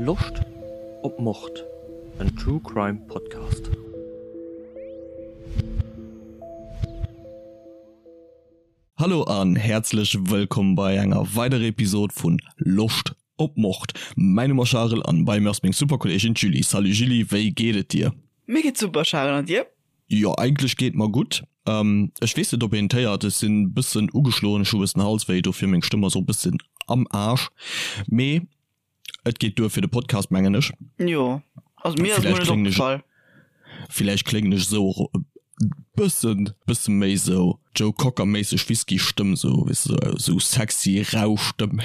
Loscht op Mord? En True Crime Podcast. Hallo an häerzlech wëllkomm bei enger weiderer Episod vun Loscht op Mord. Mäin Numm ass Charel an bei mir ass meng super Kolleegin d'Julie. Salut Julie, wéi geet et dir? Mir geet super Charel, an dir? Jo eigentlech geet mer gutt. Ech weess net op een et héiert, ech sinn bëssen ugeschloen, ech hu bëssen Halswéi, dofir meng Stëmm ass och bëssen am Aasch, mee et geet duer fir de Podcast mengen ech. Jo, also mir ass mol net opgefall. Villäicht kléngen ech esou och e bëssen bësse méi esou Joe Cocker méisseg Whisky Stëmm esou weess de esou sexy rau Stëmm.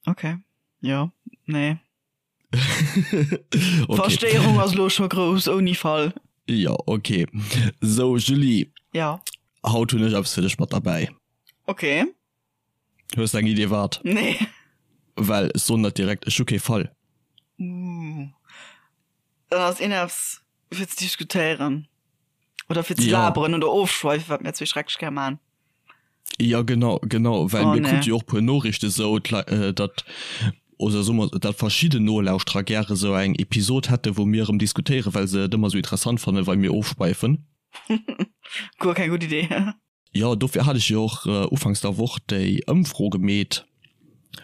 Ok, jo, nee. Okay. Verstéierung ass lo scho grouss ouni Fall. Ja, okay. So, Julie. Ja. Haut hunn ech eppes fir dech mat derbäi. Okay. Hues de eng Idee wat? Nee. Well ech soen der direkt, ech hu kee Fall. Uh. Dann ass een eppes fir ze diskutéieren. Oder fir ze laberen oder ofschweifen, wat mir zwee schrecklech gär man. Ja genau genau well oh, mir krute jo och puer Noriichte sou datt oder soe mer datt verschidden Nolauschterer gäre sou eng Episod hätte wou mir erëm diskutéiere well se et ëmmer sou interessant fannen wei mir ofschweifen. Guer keng gutt Idee. Jo dofir hat ech jo och ufanks der Woch déi Ëmfro gemeet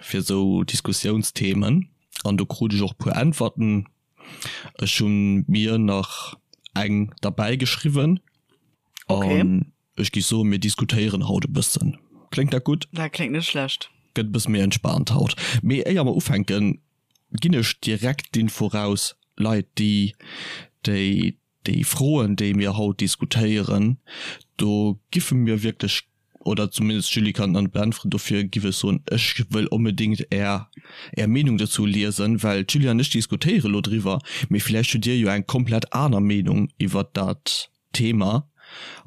fir sou Diskussiounsthemen an do krut ech och puer Äntwerten. Ech hunn mir nach eng derbäi geschriwwen an Ech géif soen, mir diskutéieren haut e bëssen. Kléngt dat gutt? Dat kléngt net schlecht. Gëtt e bësse méi entspaant haut. Mee éier mer ufänken, ginn ech direkt d'Info raus, Leit, déi, déi, déi Froen, déi mir haut diskutéieren, do giffe mir wierklech, oder zumindest d'Julie kann et beäntweren, dofir giff ech soen, ech wëll onbedéngt Är, Är Meenung dozou liesen, well d'Julie an ech diskutéiere lo driwwer, mee villäicht hutt Dir jo eng komplett aner Meenung iwwert dat Thema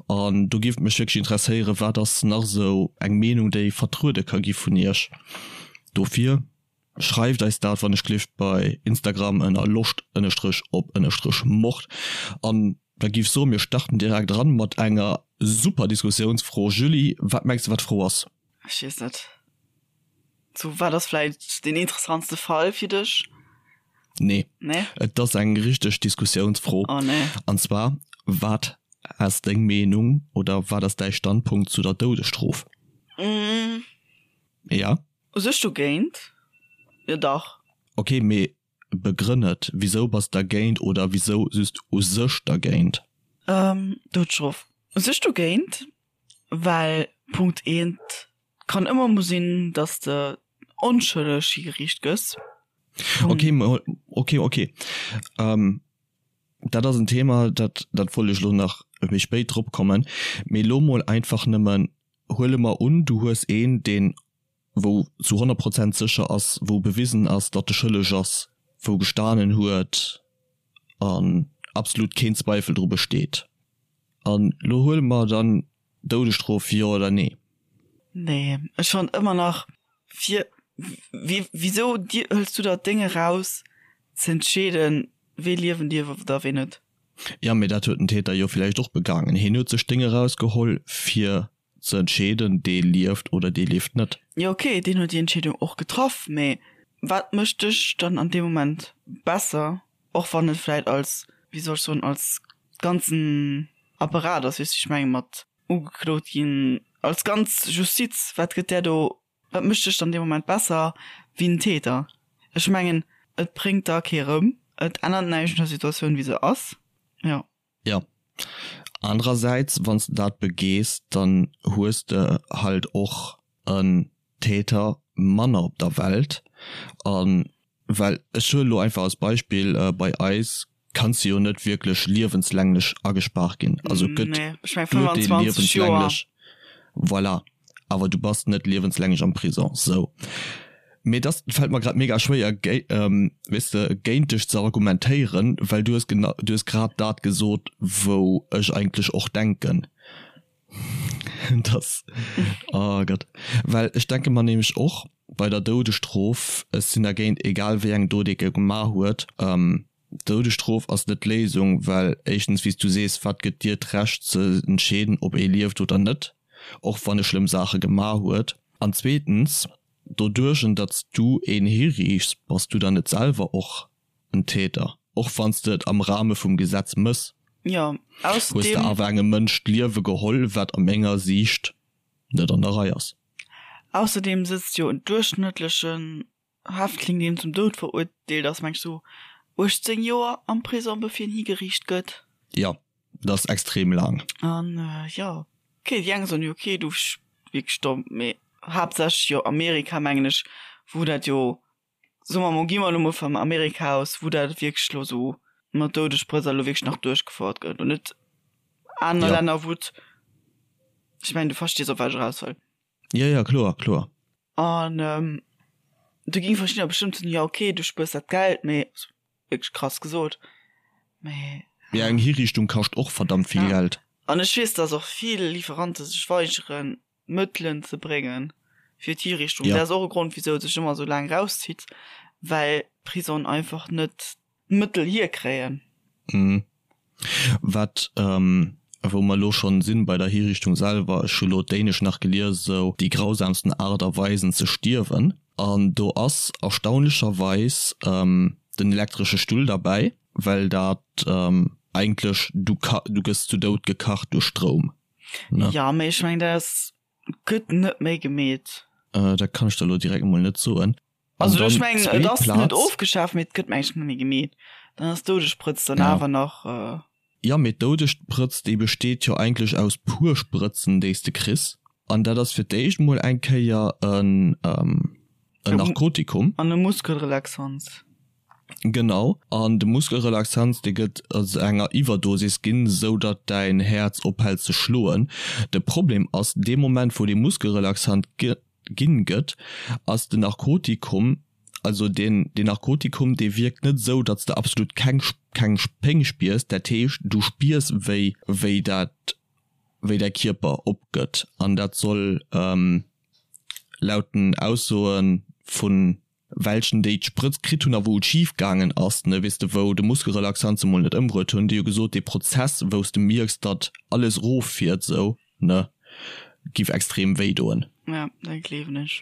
an do géif et mech wierklech interesséieren, wat ass nach esou eng Meenung déi vertruede ka gi vun iech. Dofir schreift eis dat wann ech gelift bei Instagram ënner loscht ënnerstrech op ënnerstrech mord an da géif soen mir starten direkt eran mat enger super Diskussiounsfro. Julie, wat mengs de wat d'Fro ass? Ech weess net. Sou, wat ass vläit deen interessantste Fall fir dech? Nee. Nee? Et ass eng richteg Diskussiounsfro. Oh nee. An zwar, Wat ass deng Meenung oder wat ass däi Standpunkt zu der Doudesstrof? Mm. Ja? U sech dogéint, jo dach. Ok, mee begrënn et. Wisou bass dergéint oder wisou just u sech dergéint? Doudesstrof. U sech dogéint, well Punkt eent, Kann ëmmer mol sinn, dass de onschëlleg higeriicht gëss. Ok, ok, ok. Dat ass en Thema, dat dat wollt ech elo nach méi spéit drop kommen. Mee elo mol einfach nëmmen, huele mer un, du hues een, deen, wou zu 100 Prozent sécher ass, wou bewisen ass, datt e schëlleg ass, wou gestanen huet an absolut keen Zweifel dru besteet. An elo huele mer dann Doudesstrof, jo oder nee? Nee, ech fannt ëmmer nach fir wisou hëls du der d'Déng eraus ze entscheeden wee liewen dierf oder wee net? Jo, mee dat huet den Täter jo villäicht och begaangen. Hien huet sech d'Déng erausgeholl fir ze entscheeden, dee lieft oder dee lieft net. Jo ok, deen huet déi Entscheedung och getraff, mee wat mécht dech dann an deem Moment besser, och wann et vläit als, wéi soll ech soen, als ganzen Apparat ass, weess wéi ech mengen, mat ugeklot ginn, als ganz Justiz, wat gëtt där do, wat mécht dech dann dee Moment besser wéi den Täter? Ech mengen, et bréngt da kee rëm, et ännert näischt un der Situatioun wéi se ass, jo. Jo. Anerersäits, wann s de dat begees, dann hues de halt och en Täter manner op der Welt. A well, ech huelen elo einfach als Beispill, bei eis kanns de jo net wierklech liewenslänglech agespaart ginn. Also et gëtt Nee, ech meng 25 Joer. Liewenslänglech, voilà, awer du bass net liewenslänglech am Prison. Sou. Mee dass fält mer grad mega schwéier, weess de, géint dech ze argumentéieren, well du hues genau, du hues grad dat gesot, wou ech eigentlech och denken. Dass, oh Gott. Well ech denke mer nämlech och bei der Doudesstrof, ech sinn dergéint, egal wéi eng Dot ee gemaach huet, D'Doudesstrof ass net d'Léisung, well éischtens, wéi s du sees, wat gëtt dir d'Recht ze entscheeden, ob ee lieft oder net, och wann e schlëmm Saache gemaach huet? An zweetens. Doduerch datt s du een hiriichts, bass du dann net selwer och en Täter? Och wann s de et am Rahme vum Gesetz mëss, Jo, hues de ausserdeem. awer engem Mënsch d'Liewe geholl, wat a menger Siicht net an der Rei ass. Ausserdeem sëtzt jo en duerchschnëttlechen Häftling, deen zum Doud verurteelt ass, meng ech sou 18 Joer am Prisong, bevir en higeriicht gëtt. Jo, dat ass extrem laang. An jo, ok, déi eng soen jo, ok, du wierklech domm, mee haaptsächlech jo Amerika, mengen ech, wou dat jo, soe mer mol, gi mer elo mol vum Amerika aus, wou dat wierklech elo sou mat Doudessprëtz elo wierklech nach duerchgefouert gëtt an net aner Länner, wou et, ech mengen, du verstees, op wat ech eraus wëll. Jo, jo, kloer, kloer. An do géinge verschiddener bestëmmt soen, jo ok, du spuers dat Geld, mee, wierklech krass gesot, mee. Mee eng Hiriichtung kascht och verdammt vill Geld. An ech weess, dass och vill Lieferante sech weigeren, Mëttelen ze bréngen fir d'Hiriichtung. Dat ass och e Grond, wisou et sech ëmmer esou laang erauszitt, well d'Prisongen einfach net d'Mëttel hierkréien. Wat, wou mer elo schonn sinn bei der Hiriichtung selwer, ech hu lo d'Dänesch nach gelies, esou déi grausamsten Aart a Weisen ze stierwen, an do ass erstaunlecherweis den elektresche Stull derbäi, well dat eigentlech, du du gëss zu Doud gekacht duerch Stroum, ne? Jo, mee ech mengen, dat ass, gëtt net méi gemeet. Dat kann ech der elo direkt emol net soen. Also ech mengen et ass net ofgeschaaft, mee et gëtt mengen ech net méi gemeet. Dann ass d'Doudessprëtz dann awer nach. Jo, mee d'Doudessprëtz déi besteet jo eigentlech aus puer Sprëtzen déi s de kriss. An dat ass fir d'éischt mol eng Kéier en Narkotikum. An e Muskelrelaxans. Genau. An de Muskelrelaxans dee gëtt a enger Iwwerdosis ginn, sou datt däin Häerz ophält ze schloen. De Problem ass, dee Moment wou dee Muskelrelaxant ginn gëtt, ass den Narkotikum, also deen deen Narkotikum dee wierkt net esou, datt s de absolut keng keng Péng spiers, dat heescht du spiers wéi wéi dat wéi däi Kierper opgëtt an dat soll laut den Aussoe vun welchen déi d'Sprëtz kritt hunn a wou et schif gaangen ass, ne, weess de, wou de Muskelrelaxant se mol net ëmbruet hunn, déi hu gesot, dee Prozess wou s de mierks, datt alles erof fiert esou, ne, giff extrem wéi doen. Ja, dat gleewen ech.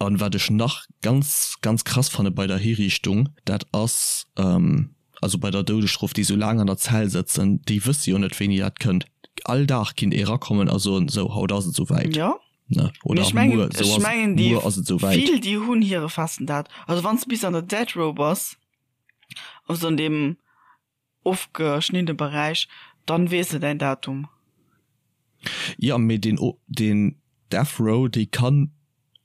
An wat ech nach ganz, ganz krass fanne bei der Hiriichtung, dat ass, also bei der Doudesstrof, déi sou laang an der Zell sëtzen, déi wësse jo net wéini dat kënnt. All Dag kinnt ee rakommen a soen, sou, haut ass et souwäit. Jo. Ne? Oder Ech mengen, muer, sou ech ass, mengen déi muer ass et souwäit. vill déi hunn hire festen Dat. Also wann s de bis an der Death Row bass, also an deem ofgeschniddene Beräich, dann weess de däin Datum. Jo, mee deen, deen Death Row, déi kann,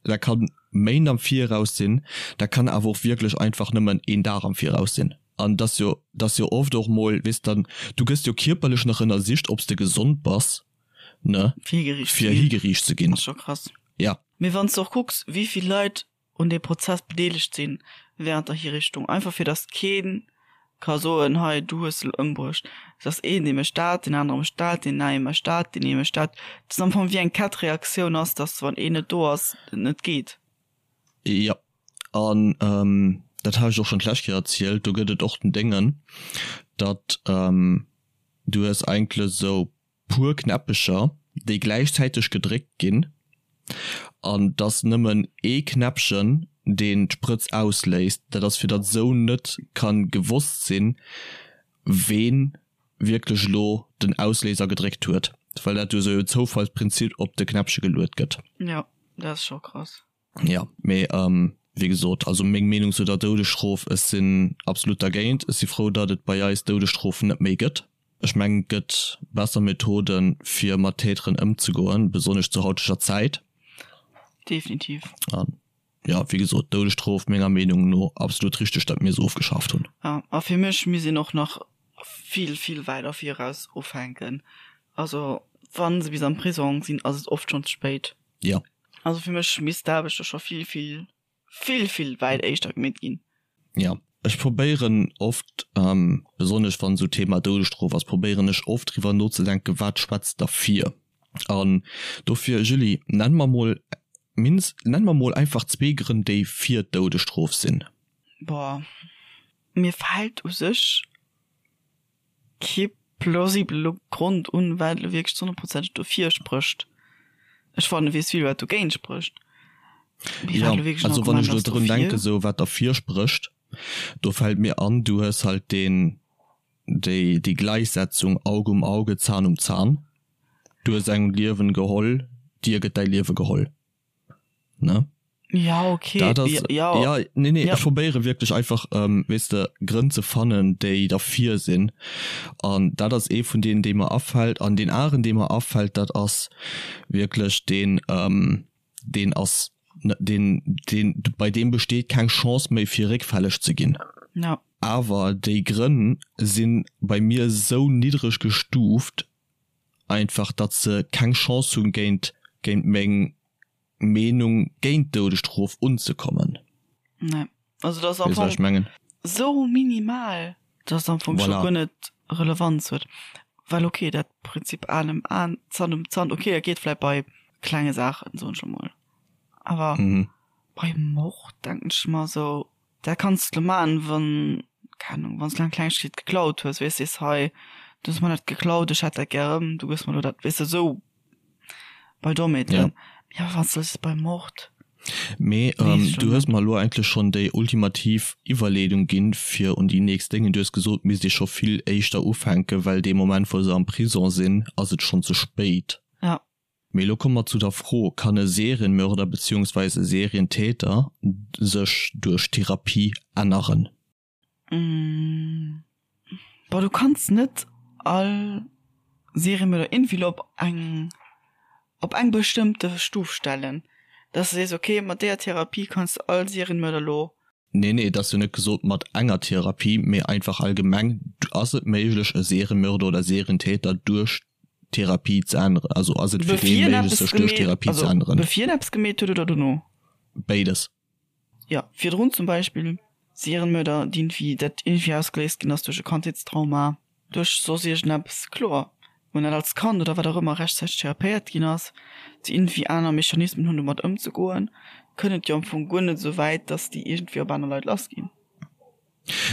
dat kann Méint am Viraus sinn, dat kann awer och wierklech einfach nëmmen een Dag am Viraus sinn. An et ass jo, et ass jo oft och mol, weess dann, du gëss jo kierperlech nach ënnersicht, ob s de gesond bass, ne, Fir higeriicht ze fir ginn. higeriicht ze ginn. Ass scho krass. Ja. Mee wann s de och kucks, wéi vill Leit un deem Prozess bedeelegt sinn während der Hiriichtung, einfach fir datt kee ka soen, hei du hues se elo ëmbruecht. Et ass een dee mécht dat, deen anere mécht dat, deen neie mécht dat, deen ee mécht dat. Dat ass am Fong wéi eng Kettreaktioun ass, datt wann een net do ass, et net geet. Jo, an dat hat ech och schonn d'lescht Kéier erzielt, do gëtt et och den Déngen, datt du hues eigentlech esou puer Knäppecher, déi gläichzäiteg gedréckt ginn, an 't ass nëmmen ee Knäppchen, deen d'Sprëtz ausléist. Dat ass fir datt esou net ka gewosst sinn, ween wierklech elo den Ausléiser gedréckt huet, well dat jo esou e Zoufallsprinzip op de Knäppche geluet gëtt. Jo, dat ass scho krass. Jo, mee wéi gesot, also meng Meenung zu der Doudesstrof, ech sinn absolut dergéint. Ech si frou, datt et bei eis d'Doudesstrof net méi gëtt. Ech mengen, et gëtt besser Methoden, fir mat Täteren ëmzegoen, besonnesch zur hauteger Zäit. Definitiv. An jo, wéi gesot, d'Doudesstrof, menger Meenung no absolut richteg, datt mir se ofgeschaaft hunn. Jo, a fir mech misst een och nach vill, vill weider viraus ufänken. Also wa se bis am Prisong sinn, ass et oft schonn ze spéit. Jo. Also fir mech misst d'Aarbecht do scho vill, vill, vill, vill wäit éischter gemeet ginn. Jo, ech probéieren oft, besonnesch wann esou Thema Doudesstrof ass, probéieren ech oft driwwer nozedenken, wat schwätzt derfir? An dofir, Julie, nenn mer mol mindest, nenn mer mol einfach zwee Grënn, déi fir d'Doudesstrof sinn. Boah, mir fält u sech kee plausibele Grond un, wat elo wierklech ze honnertprozenteg dofir sprécht. Ech fannen, weess vill, wat dogéint sprécht. Mee Ja, wat elo wierklech en also wann Argument ech elo ass drun dofir. denken, sou wat derfir sprécht, do fält mir an, du hues halt deen, déi, déi Gläichsetzung Auge um Auge, Zahn um Zahn. Du hues engem d'Liewen geholl, dir gëtt däi Liewe geholl, ne? Ja, okay. Dat ass, ja, ja, nee, nee, ja. ech probéiere wierklech einfach, ähm, weess de, Grënn ze fannen, déi derfir sinn. An dat ass ee vun deenen, dee mer afält. An deen aneren, dee mer afält, dat ass wierklech deen, ähm, deen ass, deen, deen, bei deem besteet keng Chance méi, fir réckfälleg ze ginn. Ja. Awer déi Grënn si bei mir esou niddreg gestuuft einfach, datt se keng Chance hunn, géint, géint meng Meenung géint d'Doudesstrof unzekommen. Nee, also dat ass am Weess wat ech Fong mengen? esou minimal, dass et am Fong scho Voilà. guer net Relevanz huet. Well okay, dat Prinzip Aen ëm Aen, Zant ëm Zant, okay, dat geet vläit bei klenge Saachen, soen ech elo mol. Awer Mhm. bei Mord denken ech mer esou, dat kanns de elo maachen, wann, keng Ahnung, wann s de eng Klengegkeet geklaut hues, weess, sees, hei, du hues mer dat geklaut, ech hätt dat gär erëm, du gëss mer elo dat, weess de, esou. Bei Dommheeten. Ja. Ja, wat soll bei Mord? Mee ähm, du hues mer elo eigentlech schonn déi ultimativ Iwwerleedung ginn, fir un déi nächst Déngen. Du hues gesot, misst ee scho vill éischter ufänken, well dee Moment, wou se am Prison sinn, ass et schonn ze spéit. Ja. Mee elo komme mer zu der Fro, Kann e Serienmörder beziehungsweise e Serientäter sech duerch Therapie änneren? Boah, du kanns net all Seriemörder irgendwie op eng op eng bestëmmte Stuf stellen, dass de sees, okay, mat deeër Therapie kanns de all Serienmörder lo. Nee, nee, et ass jo net gesot mat enger Therapie, mee einfach allgemeng, ass et méiglech e Serienmörder oder Serientäter duerch Therapie ze änneren? Also ass et fir dee méiglech sech duerch Therapie ze änneren? Bevir en eppes gemeet huet oder dono? Béides. Jo, virdrun zum Beispill Serienmörder, déi irgendwie, dat irgendwie ausgeléist ginn ass duerch e Kandheetstrauma, duerch soss iergendeppes, kloer, wou net als Kand oder wat och ëmmer rechtzäiteg therapéiert ginn ass, déi irgendwie aner Mechanismen hunn domat ëmzegoen, kënnt et jo am Fong guer net esou wäit, datt déi iergendwéi op aner Leit lassginn.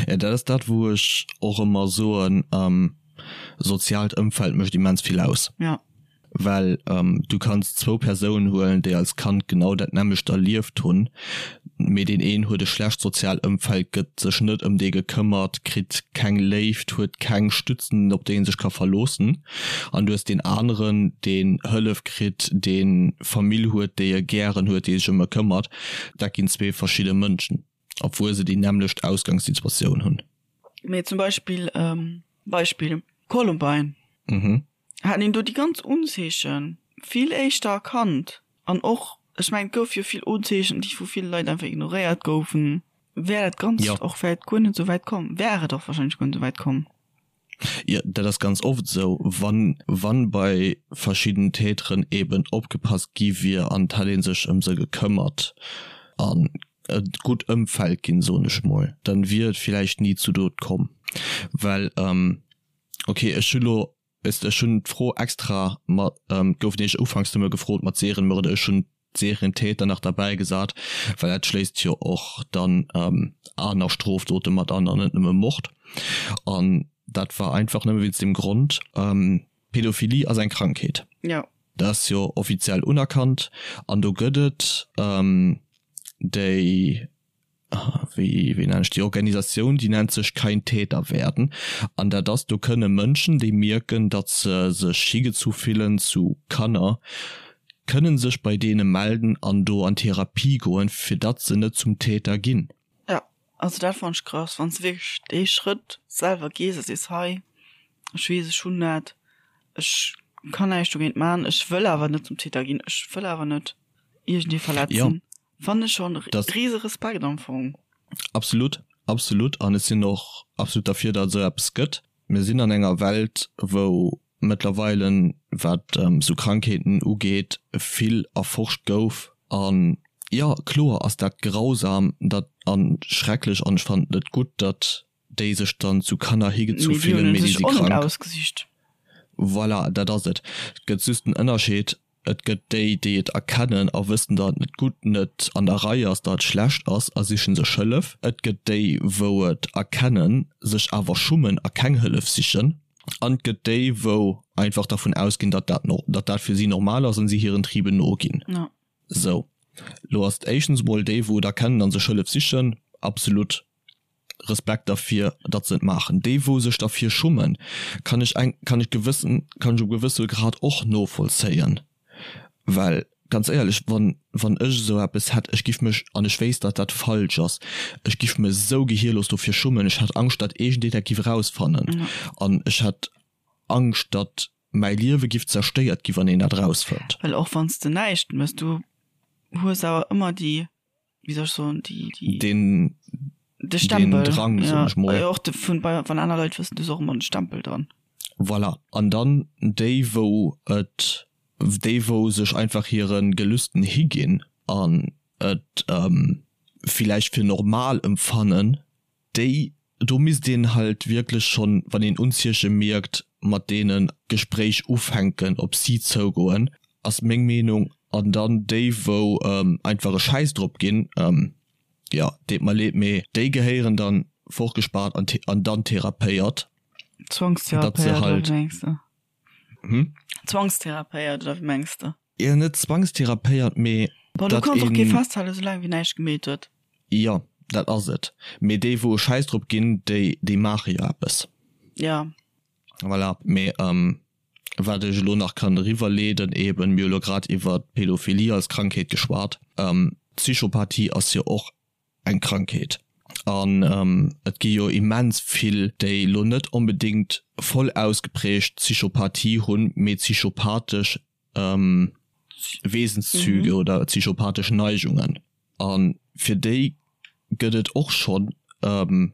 Jo, dat ass dat, wou ech och ëmmer soen, soziaalt Ëmfeld mécht immens vill aus. Ja. Well du kanns zwou Persounen huelen, déi als Kand genau dat nämmlecht erlieft hunn, mee deen een huet e schlecht soziaalt Ëmfeld, gëtt sech net ëm dee gekëmmert, kritt keng Léift, huet keng Stützen, op déi en sech ka verloossen. An du hues deen aneren, deen Hëllef kritt, dee Famill huet, déi e gären huet, déi sech ëm e këmmert. Dat ginn zwee verschidde Mënschen. Obwuel se déi nämmlecht Ausgangssituatioun hunn. Mee zum Beispill, Beispill Columbine, Mhm. hätt een do déi ganz Unzeeche vill éischter erkannt an och, ech mengen et gouf jo vill Unzeechen, déi vu ville Leit einfach ignoréiert goufen, wär dat Ganzt Jo. och vläicht guer net esou wäit komm, wär et och wahrscheinlech guer net esou wäit komm. Jo, dat ass ganz oft esou, wann, wann bei verschidden Täteren eben opgepasst gi wier an et hätt ee sech ëm se gekëmmert an e gutt Ëmfeld ginn, soen ech mol, dann wier et villäicht ni zu Dot komm. Well, ok, ech hu lo, weess de, ech hunn d'Fro extra mat, gouf nämlech ufanks nëmme gefrot mat Serienmörder, ech hunn Serientäter nach derbäi gesat, well dat schléisst jo och dann aner Strofdote mat an an net nëmme Mord. An dat war einfach nëmme wéinst deem Grond, Pädophilie ass eng Krankheet. Jo. Dat ass jo offiziell unerkannt an do gëtt et déi, wéi wéi nennen ech déi Organisatioun, déi nennt sech Kein Täter werden an dat ass, do kënne Mënschen, déi mierken, datt se sech higezu fillen zu Kanner, kënne sech bei deene melden an do an Therapie goen, fir datt se net zum Täter ginn. Jo, also dat fannen ech krass, wann s de wierklech dee Schrëtt selwer gees a sees, hei, ech weess, ech hunn dat, ech kann näischt dogéint man, ech wëll awer net zum Täter ginn, ech wëll awer net iergendee verletzen. Fannen ech schon riese Respekt am Fong. Absolut, absolut an ech sinn och absolut derfir datt et esou eppes gëtt. Mir sinn an enger Welt wou mëttlerweile wat esou Krankheeten ugeet vill erforscht gouf an jo kloer ass dat grausam dat an schrecklech an ech fannen et net gutt datt déi sech dann zu Kanner higezu fillen, mee déi si krank. Voilà, dat ass et. Et gëtt just den Ënnerscheed, et gëtt déi, déi et erkennen a wëssen, datt et net gutt, net an der Rei ass, datt et schlecht ass a sichen sech Hëllef. Et gëtt déi, wou et erkennen, sech awer schummen a keng Hëllef sichen. An et gëtt déi, wou einfach dervun ausginn, datt dat, datt dat fir si normal ass an si hiren Triben noginn. Sou. Lo ass et éischtens emol déi wou et erkennen an sech Hëllef sichen, absolut Respekt derfir datt se et maachen. Déi wou sech derfir schummen, kann ech eng kann ech gewëssen kann ech op gewësse Grad och novollzéien, well ganz éierlech wann wann ech esou eppes hätt, ech giff mech, an ech wéisst datt dat falsch ass, ech giff mech esou gehierlos dofir schummen, ech hätt Angscht datt iergendeen dat giff erausfannen an ech hätt Angscht datt mäi Liewe giff zerstéiert gi wann een dat erausfënnt. Well och wann s de näischt mëss, du hues awer ëmmer déi, wéi soll ech soen, déi, déi, Den, de Stempel, den Drang, ja, soen ech mol. Och de vun, bei, wann aner Leit wëssen, du hues och ëmmer de Stempel dran. Voilà. An dann déi wou et, déi wou sech einfach hire Gelüsten higinn an et villäicht fir normal emfannen, déi, do misst een halt wierklech schonn, wann een Unzieche mierkt, mat deenen d'Gespréich ufänken, op si zougoen, ass meng Meenung. An dann déi, wou einfach e Schäiss drop ginn, jo, deet mer leed, mee déi gehéieren dann fortgespaart an dann therapéiert, datt se halt. Zwangstherapéiert, oder wéi mengs de? Hm? Zwangstherapéiert, oder wéi mengs de? Jo, net zwangstherapéiert, mee Bon, du datt kanns och kee een. festhalen, soulaang wéi näischt gemeet huet. Jo, dat ass et. Mee déi, wou e Schäiss drop ginn, déi, déi maache jo eppes. Jo. Voilà. Mee wat ech elo nach kann eriwwerleeden, eben, mir hu lo grad iwwer d'Pädophilie als Krankheet geschwat. D'Psychopathie ass jo och eng Krankheet. An et gi jo immens vill, déi elo net onbedéngt voll ausgeprägt Psychopathie hunn, mee psychopathesch Wesenszüge oder psychopathesch Neigungen. A fir déi gëtt et och schonn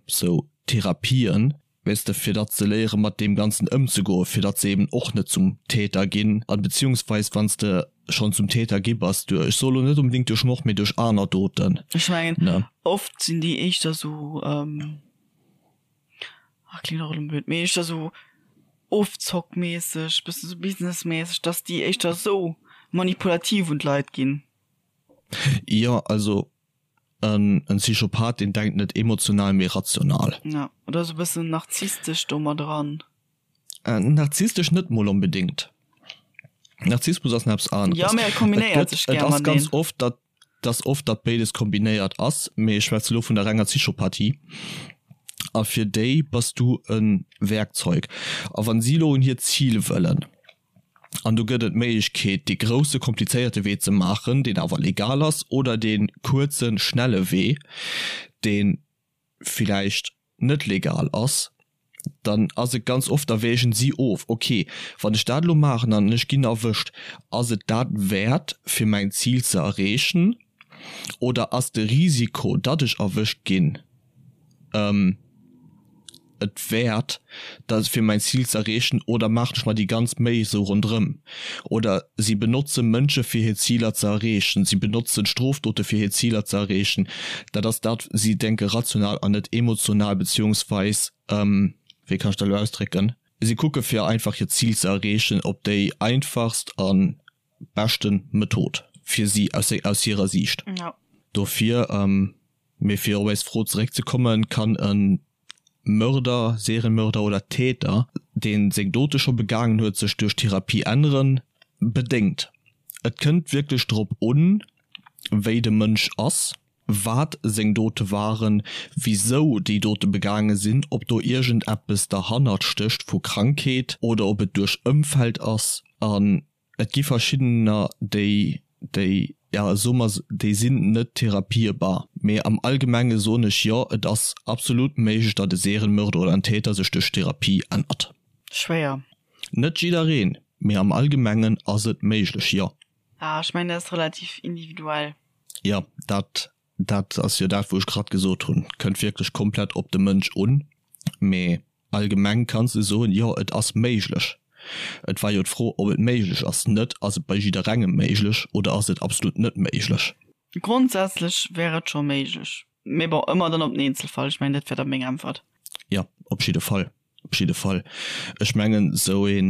sou Therapien, weess de, fir datt se léiere mat deem Ganzen ëmzegoen, fir datt se eben och net zum Täter ginn an beziehungsweis wann s de schonn zum Täter gi bass duerch, ech soe lo net onbedéngt duerch Mord, mee duerch aner Doten, Ech mengen, ne. oft sinn déi éischter sou, ach kléngt och elo blöd, mee éischter sou ofzockmässeg, bëssen sou businessmässeg, datt déi éischter sou manipulativ un d'Leit ginn. Jo, also En Psychopath, deen denkt net emotional, mee rational. Ja, oder sou bëssen narzisstesch do mat eran. Narzisstesch net mol onbedéngt. Narzissmus ass nach eppes aneres. Jo, mee et kombinéiert sech gär mateneen. Et ass ganz oft, datt dass oft datt béides kombinéiert ass, mee ech schwätze lo vun der renger Psychopathie. A fir déi bass du e Werkzeug. A wann si lo un hiert Zil wëllen, An do gëtt et d'Méiglechkeet, dee grousse komplizéierte Wee ze maachen, deen awer legal ass, oder dee kuerze schnelle Wee, dee villäicht net legal ass. Dann ass et ganz oft, da wägen si of, okay, wann ech dat elo maachen an ech ginn erwëscht, ass et dat wäert, fir mäin Zil ze erreechen, oder ass de Risiko, datt ech erwëscht ginn, et wäert, dat fir mäin Zil ze erreechen oder maachen ech mer déi ganz Méi esou ronderëm? Oder si benotze Mënsche fir hir Ziler ze erreechen, si benotzen Strofdote fir hir Ziler ze erreechen. Dat ass dat, si denke rational an net emotional, beziehungsweis, wéi kann ech dat elo ausdrécken, si kucke fir einfach hiert Zil ze erreechen op déi einfachst a beschte Method fir si aus hirer Siicht. Dofir. Mee fir op eis Fro zeréckzekommen, kann e Mörder, Serienmörder oder Täter, dee seng Dote scho begaangen huet, sech duerch Therapie änneren? Bedéngt. Et kënnt wierklech drop un, wéi de Mënsch ass, wat seng Dote waren, wisou déi Dote begaange sinn, ob do iergendeppes derhannert stécht vu Krankheet oder ob et duerch Ëmfeld ass. An Et gi verschiddener, déi, déi, ja, soe mer, déi sinn net therapierbar. Mee am Allgemenge soen ech, jo, et ass absolut méiglech, datt e Serienmörder oder en Täter sech duerch Therapie ännert. Schwéier. Net jiddereen, mee am Allgemengen ass et méiglech, jo. Ah, ech mengen, dat ass relativ individuell. Jo, dat, dat ass jo dat, wou ech grad gesot hunn. Kënnt wierklech komplett op de Mënsch un. Mee Allgemeng kanns de soen, jo et ass méiglech. Et war jo d'Fro ob et méiglech ass, net ass et bei jidderengem méiglech oder ass et absolut net méiglech. Grondsätzlech wär et scho méiglech, mee bon, ëmmer dann op den Eenzelfall. Ech mengen dat wär da meng Äntwert. Jo, op jidde Fall, op jidde Fall. Ech mengen esou ee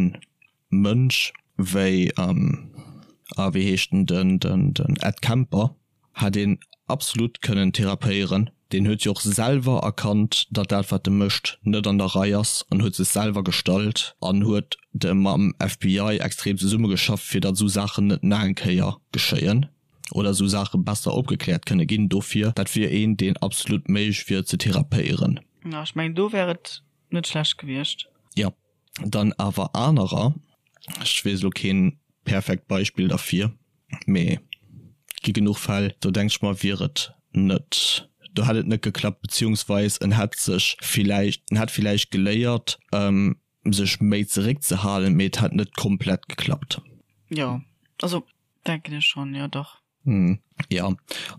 Mënsch wéi, ah wéi heescht en, den den Ed Kemper, Hätt een absolut kënnen therapéieren. Deen huet jo och selwer erkannt, datt dat wat e mécht net an der Rei ass an huet sech selwer gestallt an huet de mam FBI extrem zesummegeschafft fir datt esou Saachen net nach eng Kéier geschéien. Oder esou Saache besser opgekläert kënne ginn. Dofir, dat wier een, deen absolut méiglech wier ze therapéieren. Jo, ech mengen, do wär et net schlecht gewiescht. Jo, dann awer anerer, ech weess elo keen perfekt Beispill derfir, mee et gi genuch Fäll, do denk ech mer, wier et net, do hätt et net geklappt, beziehungsweis en hätt sech villäicht, en hätt villäicht geléiert, sech méi zeréckzehalen, mee et hätt net komplett geklappt. Jo, also denken ech schonn, jo dach. Jo,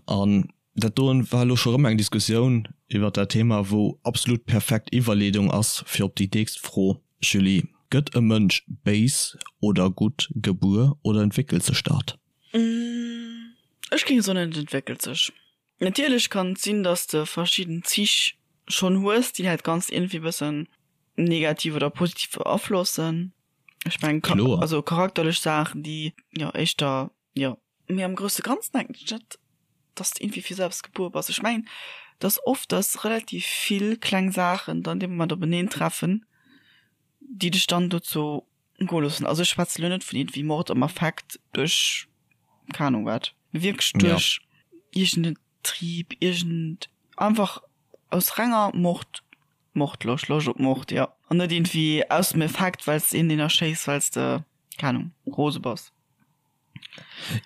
an dat doen war elo scho rëm eng Diskussioun iwwert dat Thema, wou absolut perfekt Iwwerleedung ass fir op déi nächst Fro, Julie, Gëtt e Mënsch béis oder gutt gebuer oder entwéckelt sech dat? Ech géing soen, et entwéckelt sech. Natierlech kann et sinn, dass de verschidden Zich schonn hues, déi dat Ganzt iergendwéi bëssen negativ oder positiv beaflossen. Ech mengen, also charakterlech Saachen, déi jo éischter, jo. Mee am grousse Ganzen denken ech net, dass de iergendwéi fir selbst gebuer bass. Ech mengen, dass oft, dass relativ vill kleng Saachen dann dee Moment openeen treffen, déi dech dann dozou goe loossen. Also ech schwätze lo net vun iergendwéi Mord am Affekt duerch keng Ahnung wat, mee wierklech duerch iergend en Trieb, iergend einfach aus renger Mord, Mordloscht, Loscht op Mord, jo. An net iergendwéi aus dem Effekt, well s de een deen erschéiss, well s de, keng Ahnung, rose bass.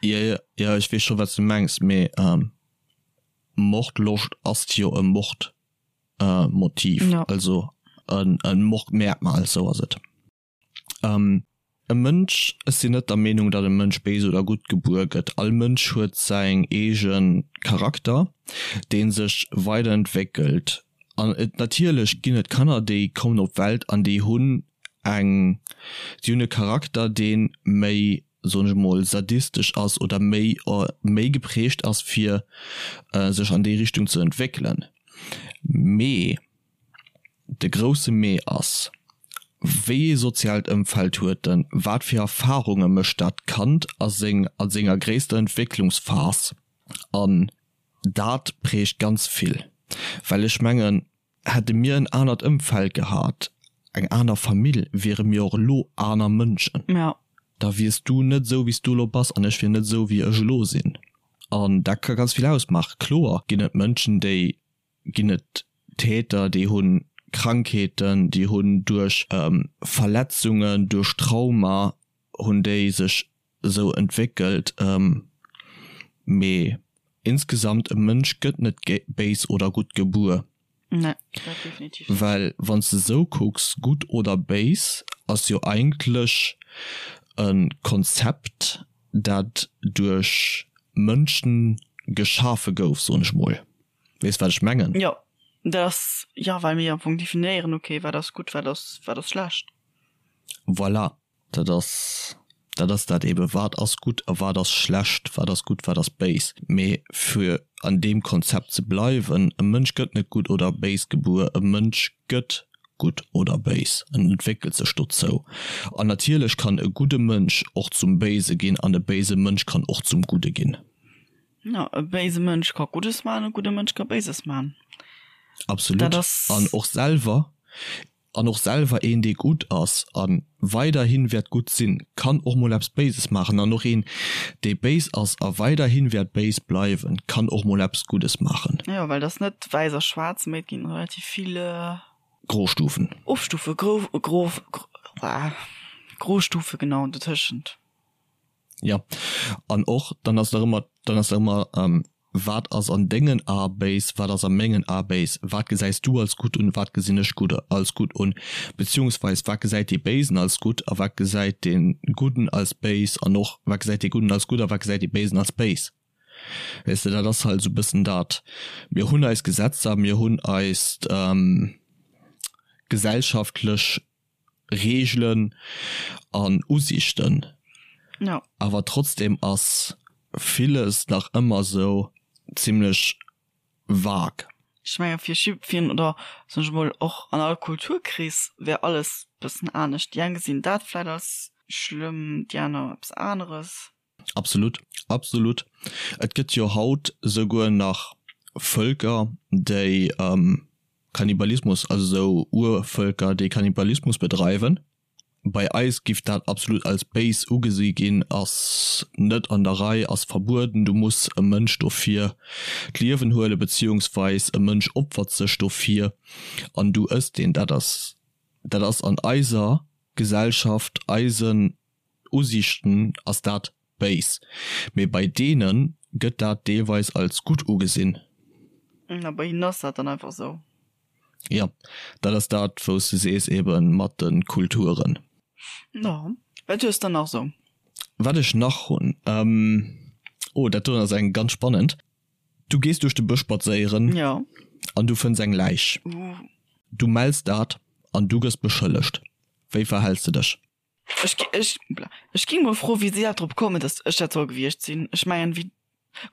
Jo, jo, jo, ech weess scho wat s de mengs, mee Mordloscht ass jo e Mordmotiv, also e Mordmerkmal, sou ass et. E Mënsch, ech sinn net der Meenung, datt e Mënsch béis oder gutt gebuer gëtt. All Mënsch huet säin eege Charakter, dee sech weiderentwéckelt. An et, natierlech ginn et Kanner, déi kommen op d'Welt an déi hunn eng, déi hunn e Charakter, dee méi, soen ech emol, sadistesch ass oder méi, méi geprägt ass, fir sech an déi Richtung ze entwéckelen. Mee de grousse Mee ass, Wéi ee soziaalt Ëmfeld huet en, wat fir Erfarunge mécht dat Kand a seng, a senger gréisster Entwécklungsphas? An dat prägt ganz vill, well ech mengen, Hätte mir en anert Ëmfeld gehat, eng aner Famill, wiere mir och elo aner Mënschen. Ja. Da wiers du net esou, wéi s du elo bass, an ech wier net esou, wéi ech elo sinn. An dat ka ganz vill ausmaachen. Kloer ginn et Mënschen, déi, ginn et Täter, déi hu Krankheeten, déi hunn duerch Verletzungen, duerch Trauma hunn déi sech esou entwéckelt. Mee insgesamt, e Mënsch gëtt net béis oder gutt gebuer. Nee, dat definitiv net. Well wann s de esou kucks, gutt oder béis ass jo eigentlech e Konzept, dat duerch Mënschen geschafe gouf, soen ech mol. Weess wat ech mengen? Jo, dat ass, jo, well mir am Fong definéieren, okay, wat ass gutt, wat ass, wat ass schlecht. Voilà. Dat ass, dat ass dat eben, wat ass gutt a wat ass schlecht, wat ass gutt, wat ass béis. Mee fir an deem Konzept ze bleiwen, e Mënsch gëtt net gutt oder béis gebuer, e Mënsch gëtt gutt oder béis, en entwéckelt sech dozou. An natierlech kann e gudde Mënsch och zum Béise ginn an e béise Mënsch kann och zum Gudde ginn. Jo, e béise Mënsch ka Guddes maachen, e gudde Mënsch ka Béises maachen. Absolut. Dat ass. An och selwer An och selwer een dee gutt ass a weiderhi wäert gutt sinn, kann och mol eppes Béises maachen. An och een dee béis ass a weiderhi wäert béis bleiwen, kann och mol eppes Guddes maachen. Jo, well et ass net wäiss a schwaarz, mee et ginn relativ vill. Grostufen. Ofstufe, gro, gro, Grostufe, genau, dotëschent. Jo, an och dann ass nach ëmmer, dann ass nach ëmmer, wat ass an dengen Ae béis, wat ass a mengen Ae béis, wat gesäis du als gutt un, wat gesinn ech gutt als gutt un, beziehungsweis wat gesäit dee Béisen als gutt a wat gesäit dee Gudden als béis an och wat gesäit dee Gudden als gutt a wat gesäit dee Béisen als béis. Weess de, dat ass halt esou e bëssen dat. Mir hunn eis Gesetzer, mir hunn eis gesellschaftlech Reegelen an Usiichten. Ja. Awer trotzdem ass villes nach ëmmer sou zimlech vague. Ech menge fir jiddfir oder soen ech emol och an all Kulturkrees wär alles bëssen anescht. Déi eng gesinn dat vläit als schlëmm, déi aner eppes aneres. Absolut, absolut. Et gëtt jo haut souguer nach Vëlker, déi Kannibalismus, also sou Urvëlker, déi Kannibalismus bedreiwen. Bei eis giff dat absolut als béis ugesi ginn, ass net an der Rei, ass verbueden, du muss e Mënsch dofir d'Liewen huelen, beziehungsweis e Mënsch opfert sech dofir an du ëss deen. Dat ass, dat ass an eiser Gesellschaft, eisen Usiichten ass dat béis, mee bei deene gëtt dat deelweis als gutt ugesinn. A bei hinnen ass dat dann einfach esou. Jo, dat ass dat wou s de sees ebe mat de Kulturen. Jo, wat hues de nach esou? Wat ech nach hunn, oh dat doen ass eng ganz spannend. Du gees duerch de Bësch spadséieren an du fënns eng Läich. Du mells dat an du gëss beschëllegt. Wéi verhäls de dech? Ech, ech, ech ging mol froen, wéi si dat drop kommen, dass ech dat soll gewiescht sinn. Ech mengen, wéi,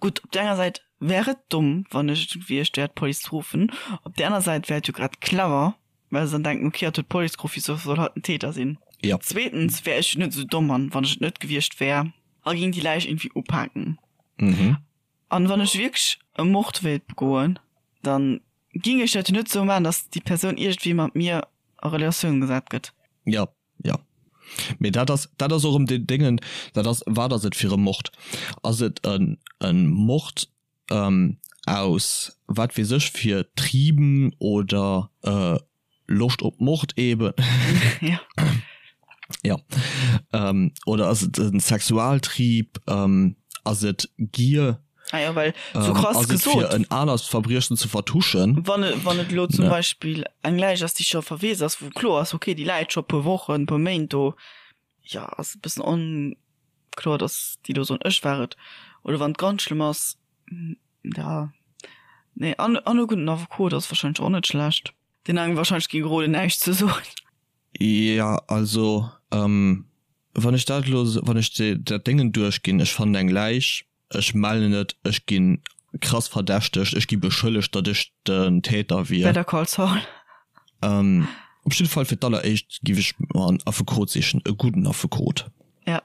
gutt, op där enger Säit wär et domm, wann ech et gewiescht wär, d'Police ze ruffen. Op där aner Säit wär et jo grad clever, well se dann denken, okay, hatt huet d'Police geruff, wisou soll hatt den Täter sinn? Jo. Zweetens wär ech jo net esou domm an, wann ech et net gewiescht wär, a ging déi Läich irgendwie upaken. An wann ech wierklech e Mord wéilt begoen, dann ging ech dat jo net esou maachen, dass déi Persoun iergendwéi mat mir a Relatioun gesat gëtt. Jo, jo. Mee dat ass, dat ass och erëm deen Déngen, dat ass, wat ass et fir e Mord? Ass et en, en Mord aus wat weess ech fir Trieben oder Loscht op Mord eben? Ja. Ja. Oder ass et e Sexualtrieb? Ass et Gier? Ah ja, well so krass ass et gesot. fir en anert Verbriechen ze vertuschen? Wann et, wann et elo zum Beispill eng Läich ass, déi scho verweest ass, wou kloer ass, okay, déi läit scho e puer Wochen, e puer Méint do, jo, ass e bëssen onkloer, datt déi do soen, ech war et. Oder wann et ganz schlëmm ass, ja, nee, an, an e gudden Affekot ass warscheinlech och net schlecht, deen engem warscheinlech géing roden, näischt ze soen. Jo, also, wann ech dat elo, wann ech dat Déngen duerchginn, ech fannen eng Läich, Ech mellen et, ech gi krass verdächtegt, ech gi beschëllegt, datt ech den Täter wier. Better Call Saul. Op jidde Fall fir d'alleréischt giff ech mer en Affekot sichen, e gudden Affekot. Ja.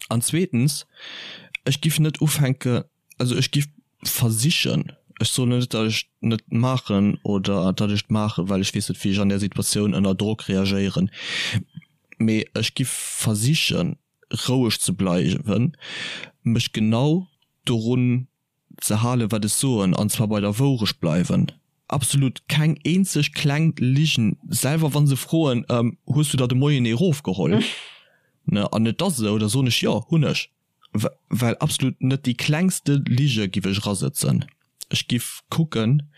An zweetens, ech giff net ufänke, also ech giff versichen, ech soen net, datt ech et net maachen oder datt ech et maachen, well ech weess net wéi ech an där Situatioun ënner Drock reagéieren, mee ech giff versichen, roueg ze bleiwen, mech genau dorun ze halen, wat ech soen, an zwar bei der Wourecht bleiwen. Absolut keng eenzeg kleng Ligen, selwer wa se froen, Hues du der de Moien ee rofgeholl? Ne, an et ass esou, da soen ech, Jo, hunn ech. Well absolut net déi klengste Lige giff ech erasëtzen. Ech giff kucken,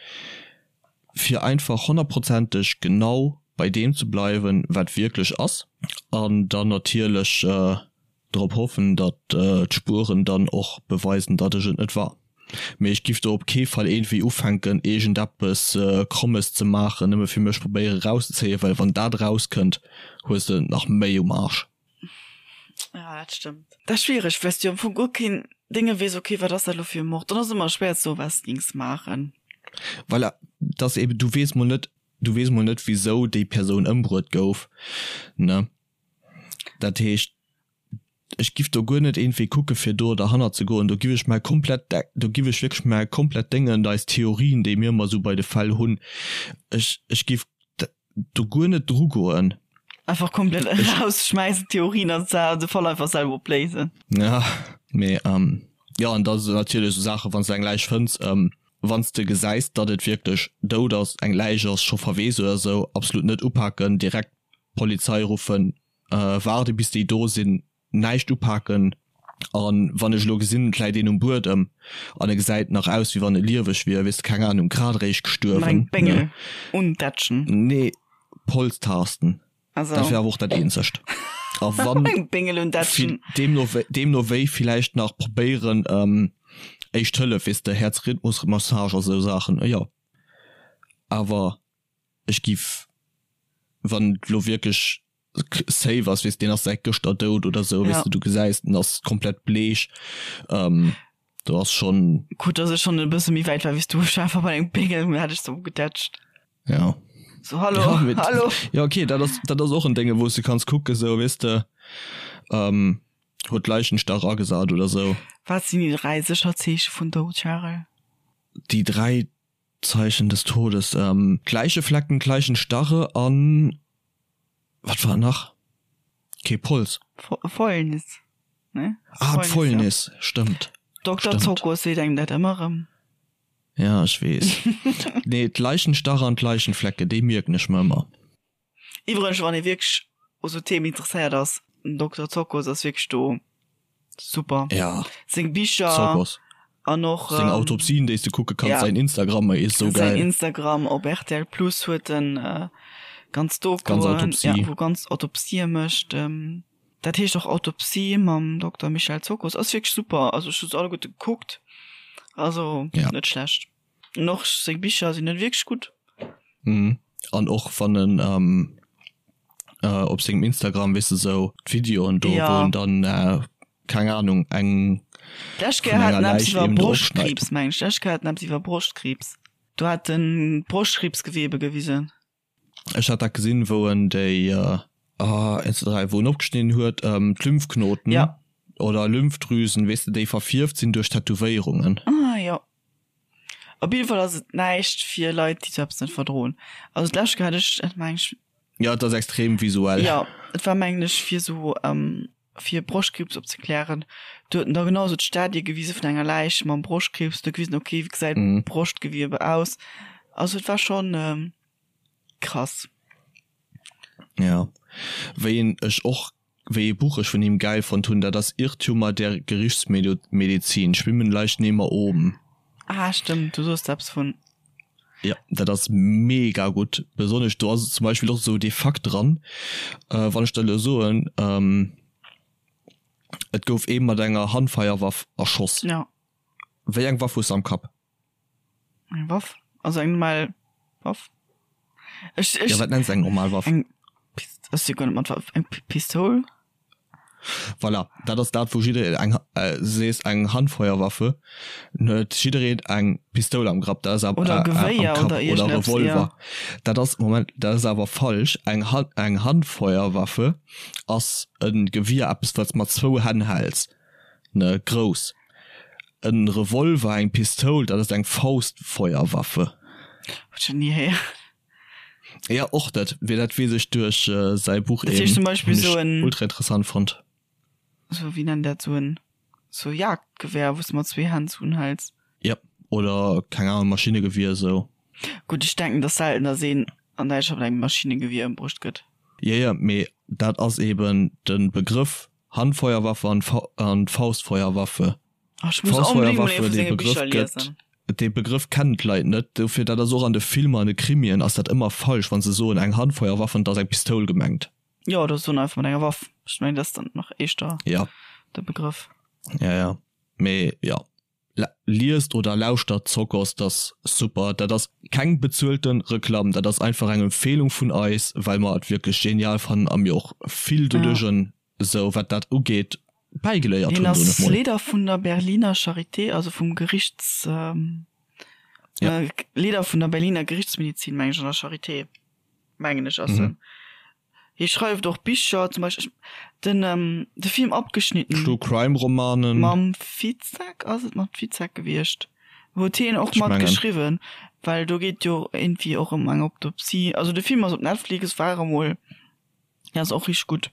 fir einfach honnertprozenteg genau bei deem ze bleiwen, wat wierklech ass, an dann natierlech drop hoffen, datt d'Spueren dann och beweisen, datt ech et net war. Mee ech giff do op kee Fall iergendwéi ufänken, iergendeppes Krommes ze maachen, nëmme fir mech probéiere rauszezéien, well wann dat erauskënnt, hues de et nach méi um Arsch. Ja, dat stëmmt. Dat ass schwiereg, well s du am Fong guer keen Dénge weess, okay, wat ass dat elo fir e Mord? Dann ass et ëmmer schwéier ze soen, wat s de gings maachen. Voilà, dat ass eben, du weess mol net, du weess mol net, wisou déi Persoun ëmbruet gouf, ne? Dat heescht, ech giff do guer net iergendwéi kucke fir do derhannert ze goen. Do giff ech mäi komplett, do giff ech wierklech mäi komplett Déngen, eis Theorien, déi mir ëmmer esou bei de Fäll hunn, ech, ech giff do guer net dru goen. Einfach komplett rausschmeißen Theorien an de Fall einfach selber opléisen. Ja, mee ähm, jo an da natierlech sou Saachen, wann s de eng Läich fënns, ähm, wann s de gesäis, datt et wierklech dout ass, eng Läich ass, scho verweest oder sou, absolut net upaken, direkt d'Polizei ruffen, äh, waarde bis déi do sinn, näischt upaken an wann ech elo gesinn et läit een um Buedem an e gesäit nach aus wéi wann e lieweg wier, weess de, keng Ahnung, grad eréischt gestuerwen, Mat engem Béngel ne? undätschen. Nee, Polztasten, Also. dat wär awer och dat eenzegt. A wann Eng Béngel undätschen. deemno wéi, deemno wéi villäicht nach probéieren Éischt Hëllef, weess de, Häerzrhythmusmassage a sou Saachen, jo, awer ech giff, wann et elo wierklech safe ass, weess deen ass säit gëschter dout oder sou, weess de, du gesäis den ass komplett bleech, do ass schonn. Gutt dass ech schonn e bësse méi wäit war wéi s du, ech war einfach bei engem Béngel an hat ech sou gedätscht. Ja. So hallo, ja, mit, hallo. Ja okay, dat ass dat ass och en Dénge wou s de kanns kucke sou, weess de, huet d'Leichenstach agesat oder sou. Wat sinn déi 3 sécher Zeeche vun Doud, Charel? Déi 3 Zeichen des Todes, D'Läicheflecken, d'Leichenstarre an. Wat war nach? Kee Pols? Fäulnis, ne? Ah, d'Fäulnis, stëmmt. Dokter Zokos seet engem dat ëmmer erëm. Ja, ech weess. Nee, d'Leichenstache an d'Leichenflecke, déi mierken ech mer ëmmer. Iwwregens, wann ee wierklech u sou Themen interesséiert ass, den Dokter Zokos ass wierklech do super. Ja. Seng Bicher Zokos. an och Seng Autopsien, déi s de kucke kanns, ja, säin Instagram is sou geil. Säin Instagram op rtl Plus huet en ganz Dokuen, ganz Autopsie. Ja, wou ganz Autopsië mécht. Dat heescht och Autopsie mam Dokter Michel Zokos. Ass wierklech super, also ech hu se alleguerte gekuckt, also ja. net schlecht. An och seng Bicher sinn net wierklech gutt. Mhm. An och wann en ähm, äh, op sengem Instagram weess de sou d'Videoen do, ja. wou en dann äh, keng Ahnung eng D'lescht Kéier hat en eppes iwwer Broschtkriibs, meng ech. D'lescht Kéier hat en eppes iwwer Broschtkriibs. Do hat en d'Broschtkriibsgewebe gewisen. Ech hat dat gesinn, wou en déi, ah, 1, 2, 3, wou en opgeschnidden huet, d'Lymphknoten ja. oder Lymphdrüsen, weess de, déi verfierft sinn duerch Tätowéierungen. Ah, jo. Op jidde Fall ass et näischt fir Leit, déi sou eppes net verdroen. Also d'lescht Kéier hat ech dat, meng ech. Ja, et ass extrem visuell. Jo, et war, mengen ech, fir sou, fir Broschtkriibs opzeklären. Do huet en da genau sou d'Stadie gewise vun enger Läich mam Broschtkriibs, do gewisen, okay, wéi gesäit d'Broschtgewiebe aus. Also et war schonn krass. Ja, wéi een ech och, wéi ee Buch ech vun him gäil fonnt hunn, dat ass Irrtümer der Gerichtsmedizin, Schwimmen Leichnehmer oben. Ah stëmmt, du soos eppes vun. Ja, dat ass mega gutt. Besonnesch do ass zum Beispill och esou dee Fakt dran, wann ech der elo soen, et gouf ee mat enger Handfeierwaff erschoss. Ja. Wéi eng Waff hues de am Kapp? Eng Waff? Also eng normal Waff? Ech, ech, ja, wat nenns eng normal Waff? Eng Pist, ech si guer net mat Waff. Eng Pistoul? Voilà, dat ass dat wou jiddereen eng, sees eng Handfeuerwaffe, huet jiddereen eng Pistoul am Grapp, dat ass awer, Oder e Gewéier am Kapp, oder oder iergendeppes, Revolver. ja. Dat ass, Moment, dat ass awer falsch. Eng Hand, eng Handfeuerwaffe ass e Gewier, eppes wat s mat zwou Hänn häls, ne, grouss. E Revolver, eng Pistoul, dat ass eng Faustfeuerwaffe. Huet ech nach ni héieren. Ja och dat wéi dat weess ech duerch säi Buch Dat heescht zum Beispill hunn sou ech en ultra interessant fonnt. sou wéi nennt dat sou en sou Jagdgewehr wou s de mat zwee Hänn sou unhäls. Ja oder keng Ahnung Maschinnegewier sou. Gutt ech denken et ass selten dass een an Däitschland mat engem Maschinnegewier ëmbruecht gëtt. Jo jo mee dat ass eben de Begrëff Handfeuerwaffe an Faustfeuerwaffe. Ach, ech muss onbedéngt mol ee Faustfeuerwaffe vu dee senge Begrëff Bicher gëtt liesen. dee Begrëff kennen d'Leit net, dofir dat ass och an de Filmer an de Krimien ass dat ëmmer falsch wann se soen eng Handfeuerwaffe an et ass eng Pistoul gemengt. Jo, oder soen einfach mat enger Waff. Ech mengen dat ass dann nach éischter Ja. de Begrëff. Ja ja mee jo liest oder lauschtert Zokos, dat ass super. Dat ass keng bezuelte Reklamm, dat ass einfach eng Empfehlung vun eis, well mer et wierklech genial fannen a mir och vill Ja. doduerch esou wat dat ugeet bäigeléiert Hien hunn, soen ass ech mol. Leeder vun der Berliner Charité, also vum Gerichts, Ja. Leeder vun der Berliner Gerichtsmedizin, meng ech, an der Charité, mengen ech ass en. Hie schreift och Bicher, zum Beispill den de Film Abgeschnitten. True Crime Romanen. Mam Fitzek, ass et mam Fitzek gewiescht? Huet hien och Ech mat mengen. geschriwwen, well do geet jo iergendwéi och ëm eng Autopsie. Also de Film ass op Netflix, war emol. Ja ass och richteg gutt.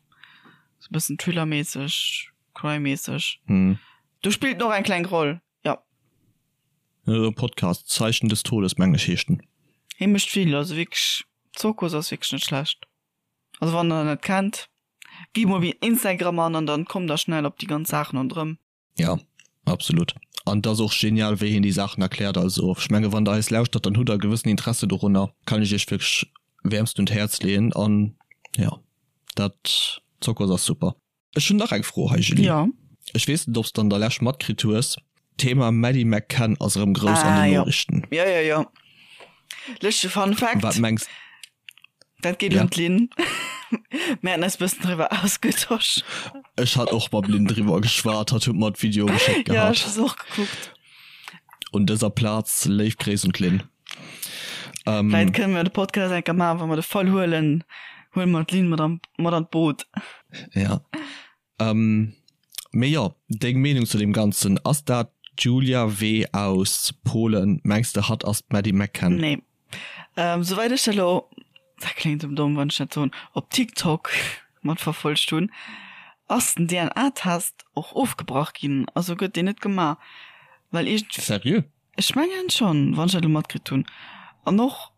Sou bëssen Thriller-mässeg, Crime-mässeg. Hm. Do spillt en och eng kleng Roll, jo. E Podcast, Zeichen des Todes mengen ech heescht en. Hie mécht vill, also wierklech Zirkus ass wierklech net schlecht. Also wann der en net kennt, gitt mol op Instagram an an dann kommt der schnell op déi ganz Saachen ronderëm. Ja, absolut. An et ass och genial, wéi hien déi Saachen erkläert. Also ech menge wann der eis lauschtert, dann hutt der e gewëssen Interesse dorunner. Kann ech iech wierklech wäermst un d'Häerz leeën. An jo, dat Zokos ass super. Ech hunn nach eng Fro hei, Julie. Jo. Ech weess net, ob s de an der Lescht matkritt hues, D'Thema Maddie McCann ass erëm grouss an Ah den jo. Noriichten. Jo, jo, jo. Lëschtege Fun Fact. Wat mengs. Dat geet Ja. un d'Lynn. Mir haten eis bëssen driwwer ausgetosch. Ech hat och mam Lynn driwwer geschwat, hatt huet mer d'Video geschéckt Ja, ech gehat. hu se och gekuckt. Un dëser Plaz léif Gréiss un d'Lynn. Ähm, Vläit kënne mer de Podcast eng Kéier maachen, wa mer de Fall huelen, huele mer d'Lynn mat an, mat an d'Boot. Ja. Ähm, mee jo, deng Meenung zu deem Ganzen, ass dat d'Julia W. aus Polen? Mengs de hatt ass d'Maddie McCann? Nee. Ähm, souwäit ech dat elo, dat kléngt ëm domm, wann ech dat soen, op TikTok. matverfollegt hunn, ass den DNA-Test och ofgebrach ginn, also gëtt deen net gemaach, well iergend. Seriö? Ech mengen schonn, wann ech dat elo matkritt hunn. An och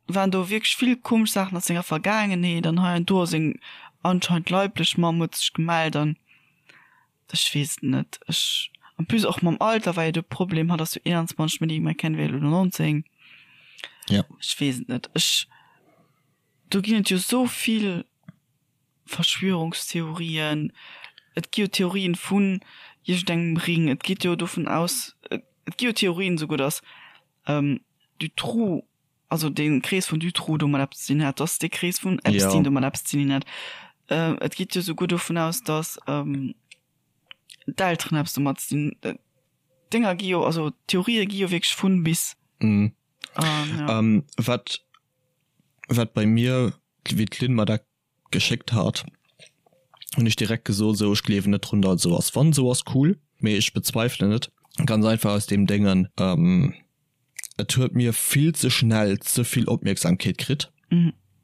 waren do wierklech vill komesch Saachen aus senger Vergaangenheet an hei an do a seng anscheinend leiblech Mamm huet sech gemellt an ech weess et net. Ech, en plus och mam Alter war jo de Problem, hatt ass jo 21, d'Maddie McCann wär elo 19. Ja. Ech weess et net. Ech, do ginn et jo esou vill Verschwörungstheorien, et gi jo Theorien vun iergendengem Ring, et geet jo dovun aus, et gi jo Theorien esouguer, datt Dutroux, also dee Krees vun Dutroux domat eppes ze dinn hat, datt dee Krees vun Epstein domat eppes ze dinn hat. Et geet jo esouguer dovun aus, datt d'Elteren eppes domat ze dinn hunn. D'Dénger gi jo, also d'Theorië gi jo wierklech vun bis. Wat, wat bei mir, wéi d'Lynn mer dat geschéckt hat, hunn ech direkt gesot, esou ech gleewen net drun, datt et esou ass. Wann esou ass, cool, mee ech bezweifelen et ganz einfach aus deem Déngen, et huet mir vill ze schnell ze vill Opmierksamkeet kritt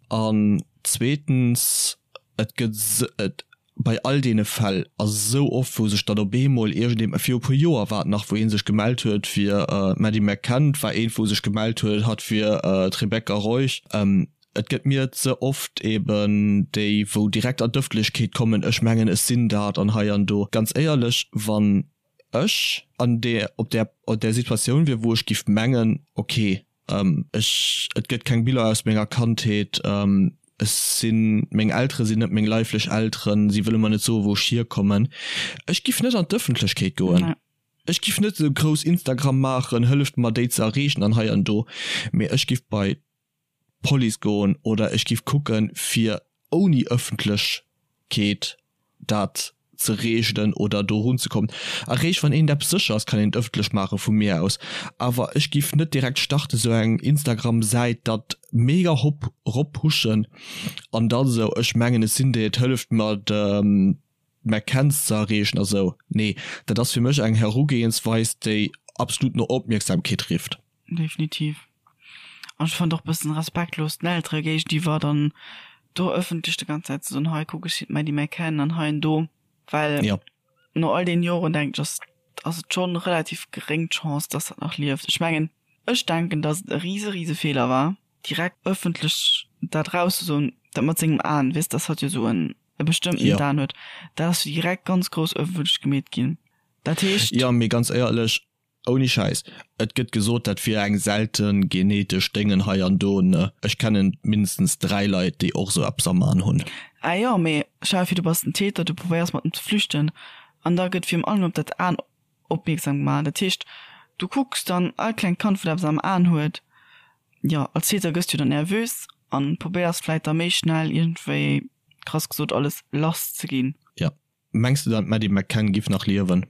an zweetens et gëtt et bei all deene Fäll ass esou oft wou sech dann op eemol iergendee, viru puer Joer war et nach, wou ee sech gemellt huet fir d'Maddie McCann, et war eent wou sech gemellt huet hatt fir d'Rebecca Reusch. Et gëtt mir ze oft eben déi wou direkt an d'Ëffentlechkeet kommen, ech mengen ech sinn dat an hei an do. Ganz éierlech, wann ech an där op där op där Situatioun wier wou ech giff mengen, ok ech et gëtt keng Biller aus menger Kandheet, ech sinn meng Eltere sinn net meng leiflech Elteren, si wëlle mer net soe wou ech hierkommen, ech giff net an d'Ëffentlechkeet goen. Ech giff net esou grouss Instagram maachen, hëlleft mer déi ze erreechen an hei an do, mee ech giff bei Police goen oder ech giff kucken fir ouni Ëffentlechkeet dat ze reegelen oder do runzekommen. Eréischt wann een eppes sécher ass kann een et ëffentlech maache vu mir aus, awer ech giff net direkt starten sou eng Instagram Säit dat mega hop rop pushen an dann sou ech mengen ech sinn déi et hëlleft mer de McCanns ze erreechen a sou. Nee dat ass fir mech eng Herugehensweis déi absolut no Opmierksamkeet rifft. Definitiv. An ech fand och bëssen respektlos den Eltere géigeniwwer dann do ëffentlech de ganz Zäit ze soen, hei kuck ech sinn d'Maddie McCann an hei an do, well Ja. no all deenen Joren denken ech ass ass et schonn relativ geréng d'Chance, dass dat nach lieft. Ech mengen, ech denken, dass et e rise rise Feeler war, direkt ëffentlech dat rauszesoen, dat mat sengem Aen, weess, dass hatt jo esou en e bestëmmtent Ja. Aen huet, dat ass jo direkt ganz grouss ëffentlech gemeet ginn. Dat heescht. Jo, mee ganz éierlech, Ouni Schäiss, et gëtt gesot dat wier eng selten genetesch Déngen hei an do, ne? Ech kennen mindestens 3 Leit déi och sou eppes am An hunn. Ah jo, mee stell der vir du bass den Täter, du probéiers mat em ze flüchten an da gëtt virun allem op dat An opmierksam gemaach. Dat heescht du kucks dann all klengt Kand wat eppes am An huet, jo als Täter gëss du dann nervös an probéiers vläit da méi schnell iergendwéi krass gesot alles lass ze ginn. Jo. Mengs de dann d'Maddie McCann giff nach liewen?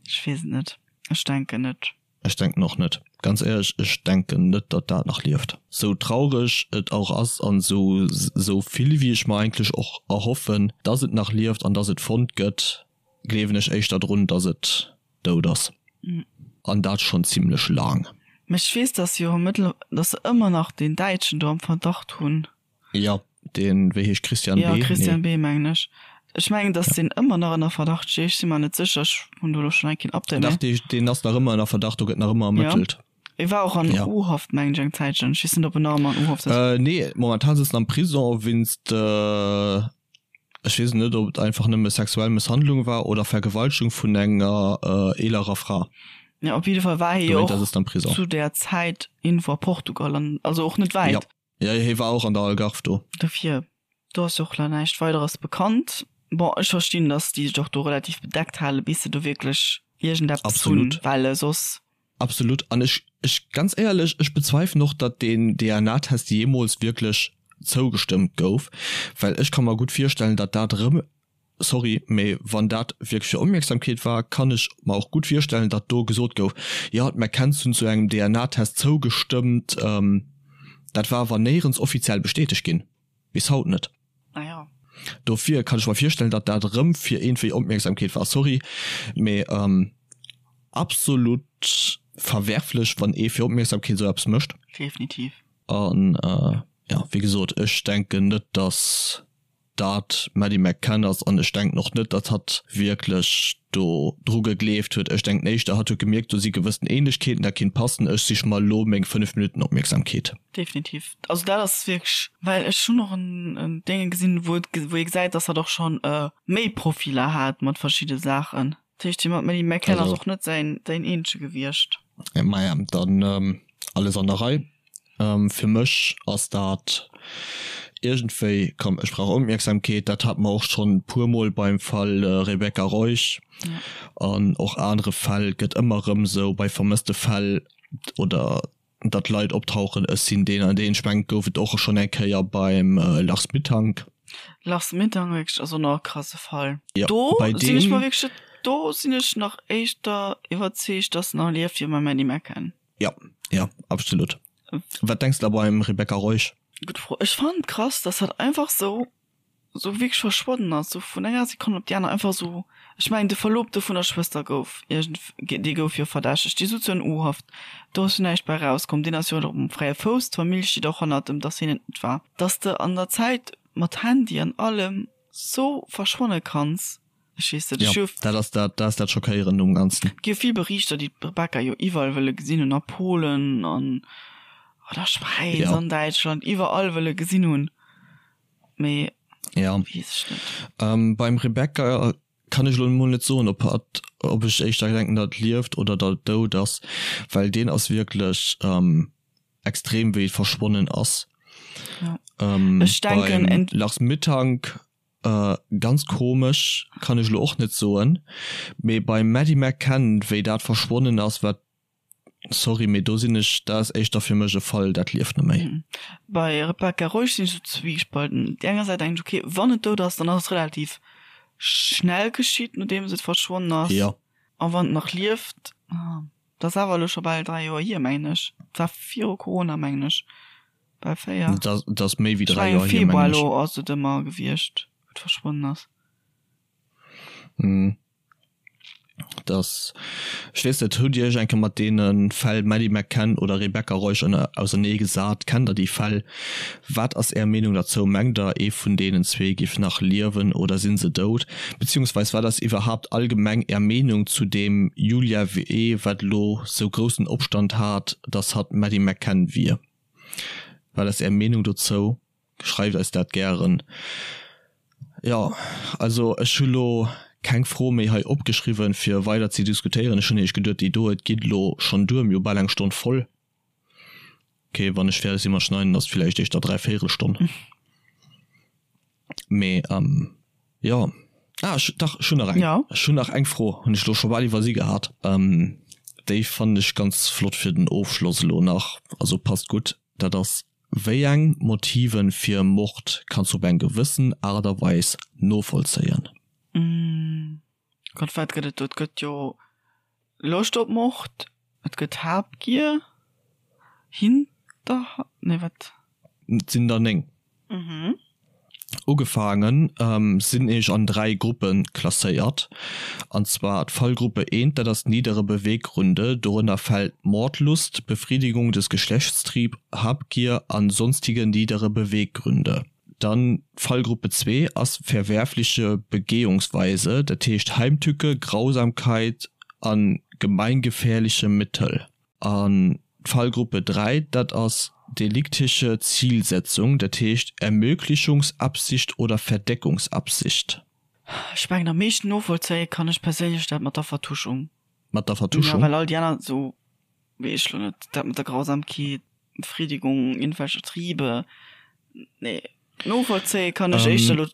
Ech weess et net. Ech denken net. Ech denken och net. Ganz éierlech, ech denken net datt dat nach lieft. Sou traureg et och ass an sou sou vill wéi ech mer eigentlech och erhoffen datt et nach lieft an datt et fonnt gëtt, gleewen ech éischter drun datt et dout ass. An dat schonn zimlech laang. Mä ech weess datt se jo mëttler datt se ëmmer nach deen Däitschen do am Verdacht hunn. Jo, deen, wéi heescht, Christian B? Jo, Christian B. mengen ech. Ech mengen, datt deen ëmmer nach ënner Verdacht steet. Ech si mer net sécher, ech hunn do elo schonn laang keen Update méi. Dach, deen ass nach ëmmer ënner Verdacht, do gëtt nach ëmmer ermëttelt. Jo, e war och an U-Haft, mengen ech, eng Zäitchen. Ech weess net, ob en nach ëmmer an U-Haft ass. Nee, momentan sëtzt en am Prison wéinst, ech weess net, ob et einfach nëmme sexuell Mësshandlung war oder Vergewaltegung vun enger eelerer Fra. Jo, op jidde Fall war hie jo och zu där Zäit iergendwou a Portugal an also och net wäit. Jo. Jo, hie war och an der Algarve do. Dofir, do ass jo och nach näischt Weideres bekannt. Bon, ech verstinn, datt déi sech och do relativ bedeckt halen, bis se do wierklech iergendeppes hunn, Absolut. well soss. Absolut. An ech, ech, ganz éierlech, ech bezweifelen och, datt deen DNA-Test jeemools wierklech zougestëmmt gouf, well ech ka mer gutt virstellen, datt dat erëm Sorry, mee wann dat wierklech fir Opmierksamkeet war, kann ech mer och gutt virstellen, datt do gesot gouf, jo, d'McCanns hunn zu engem DNA-Test zougestëmmt. Dat war awer néierens offiziell bestätegt ginn, bis haut net. Ah jo. Dofir kann ech mer virstellen, datt dat erëm fir iergendwéi Opmierksamkeet war. Sorry, mee absolut verwerflech, wann ee fir Opmierksamkeet esou eppes mécht. Definitiv. An jo, wéi gesot, ech denken net, datt. dat d'Maddie McCann ass an ech denken och net, datt hatt wierklech do dru gegleeft huet. Ech denken éischter, hatt huet gemierkt, do si gewëssen Ähnlechkeeten, dat kinnt passen, ech sich mer elo meng 5 Minutten Opmierksamkeet. Definitiv. Also dat ass wierklech, well ech hunn och en Dénge gesinn, wou et, wou ee gesäit, datt hatt och schonn méi Profiller hat mat verschidde Saachen. Dat heescht, dee mat Maddie McCann ass och net säin, säin eenzege gewiescht. Maja, dann alles an der Rei. Fir mech ass dat iergendwéi, komm ech brauch Opmierksamkeet, dat hate mer och schonn e puer Mol beim Fall Rebecca Reusch an och anere Fäll, gëtt ëmmer erëm esou bei vermësste Fäll oder datt Leit optauchen, ech sinn deen an deen. Ech mengen et gouf et och schonn eng Kéier beim Lars Mittank. Lars Mittank wierklech ass och nach e krasse Fall. Do sinn ech mer wierklech, do sinn ech nach éischter iwwerzeegt, datt en nach lieft wéi beim Maddie McCann. Ja, ja, absolut. Wat denks de da beim Rebecca Reusch? Gutt Fro. Ech fannen et krass, dass hat einfach sou, sou wierklech verschwonnen ass, sou vun enger Sekonn op déi aner einfach sou. Ech mengen de Verlobte vun der Schwëster gouf iergend, dee gouf jo verdächtegt, dee sutz jo an U-Haft, do ass jo näischt bei erauskomm, deen ass jo och um fräie Fouss, d'Famill steet och hannert em, dass hien et net war. Dass de an der Zäit mat Handy an allem sou verschwanne kanns. Ech weess net, ech hu. Dat ass dat, dat ass dat Schockéierend um Ganzen. Et gi jo vill Berichter, déi d'Rebecca jo iwwerall wëlle gesinn hunn, a Polen an an der Schwäiz, an Däitschland, iwwerall wëlle gesinn hunn, mee weess ech net. Beim Rebecca kann ech elo emol net soen, ob hatt, ob ech éischter denken, datt et lieft oder datt et dout ass, well deen ass wierklech extrem wéi et verschwonnen ass. Ech denken. Beim Lars Mittank Ganz komesch, kann ech lo och net soen, mee beim Maddie McCann wéi dat verschwonnen ass wat, sorry mee do sinn ech, dat ass éischter fir mech e Fall dat lieft net méi. Bei Rebecca Reusch sinn ech sou zwiegespalten. Op déi enger Säit denken ech ok wann et dout ass dann ass et relativ schnell geschitt nodeems et verschwonnen ass, a wann et nach lieft, dat ass awer elo scho bal 3 Joer hier mengen ech, et war viru Corona mengen ech. Bal 4. Dat ass méi wéi 3 Joer hier, mengen ech. Februar ass et ëmmer gewiescht, wou et verschwonnen ass. Hm. Dass, ech weess net, hutt Dir Iech eng Kéier mat deene Fäll Maddie McCann oder Rebecca Reusch ausernee gesat? Kennt Der déi Fäll? Wat ass Är Meenung derzou? Mengt Der, ee vun deenen zwee giff nach liewen oder si se dout? Beziehungsweis wat ass iwwerhaapt allgemeng Är Meenung zu deem Julia W., wat elo sou groussen Opstand hat, dass hatt d'Maddie McCann wier? Wat ass Är Meenung dozou? Schreift eis dat gären. Jo, also ech hu lo keng Fro méi hei opgeschriwwen, fir weider ze diskutéieren. Ech hunn nämlech geduet, déi do, et geet elo schonn duer, mir hu bal eng Stonn voll. Ok, wann ech fäerdeg si mat schneiden, ass et villäicht éischter dräivéierelstonn. Mee jo, ah ech, dach ech hunn nach eng. Ja. Ech hunn nach eng Fro, hunn ech elo scho bal iwwersi gehat. Déi fannen ech ganz flott fir den Ofschloss elo nach, also passt gutt. Dat ass, Wéi eng Motiven fir e Mord kanns du op eng gewëssen Aart a Weis novollzéien? Gott, wat gëtt et do? Et gëtt jo Loscht op Mord, et gëtt Habgier, Hinterhalt, nee wat? Et sinn der 9. Ugefaangen sinn ech an 3 Gruppe klasséiert, an zwar d'Fallgruppe 1, dat ass niedere Beweggründe, dorënner fält Mordlust, Befriedigung des Geschlechtstrieb, Habgier an sonstige niedere Beweggründe. Dann d'Fallgruppe 2 ass verwerfliche Begehungsweise, dat heescht Heimtücke, Grausamkeit an gemeingefährliche Mittel. An d'Fallgruppe 3, dat ass deliktische Zielsetzung, dat heescht Ermöglichungsabsicht oder Verdeckungsabsicht. Ech mengen am meeschten novollzéie kann ech perséinlech dat mat der Vertuschung. Mat der Vertuschung? Jo, well all déi aner esou, weess ech lo net, dat mat der Grausamkeet, Befriedigung irgendwelcher Triebe, nee, novollzéie kann ech éischter elo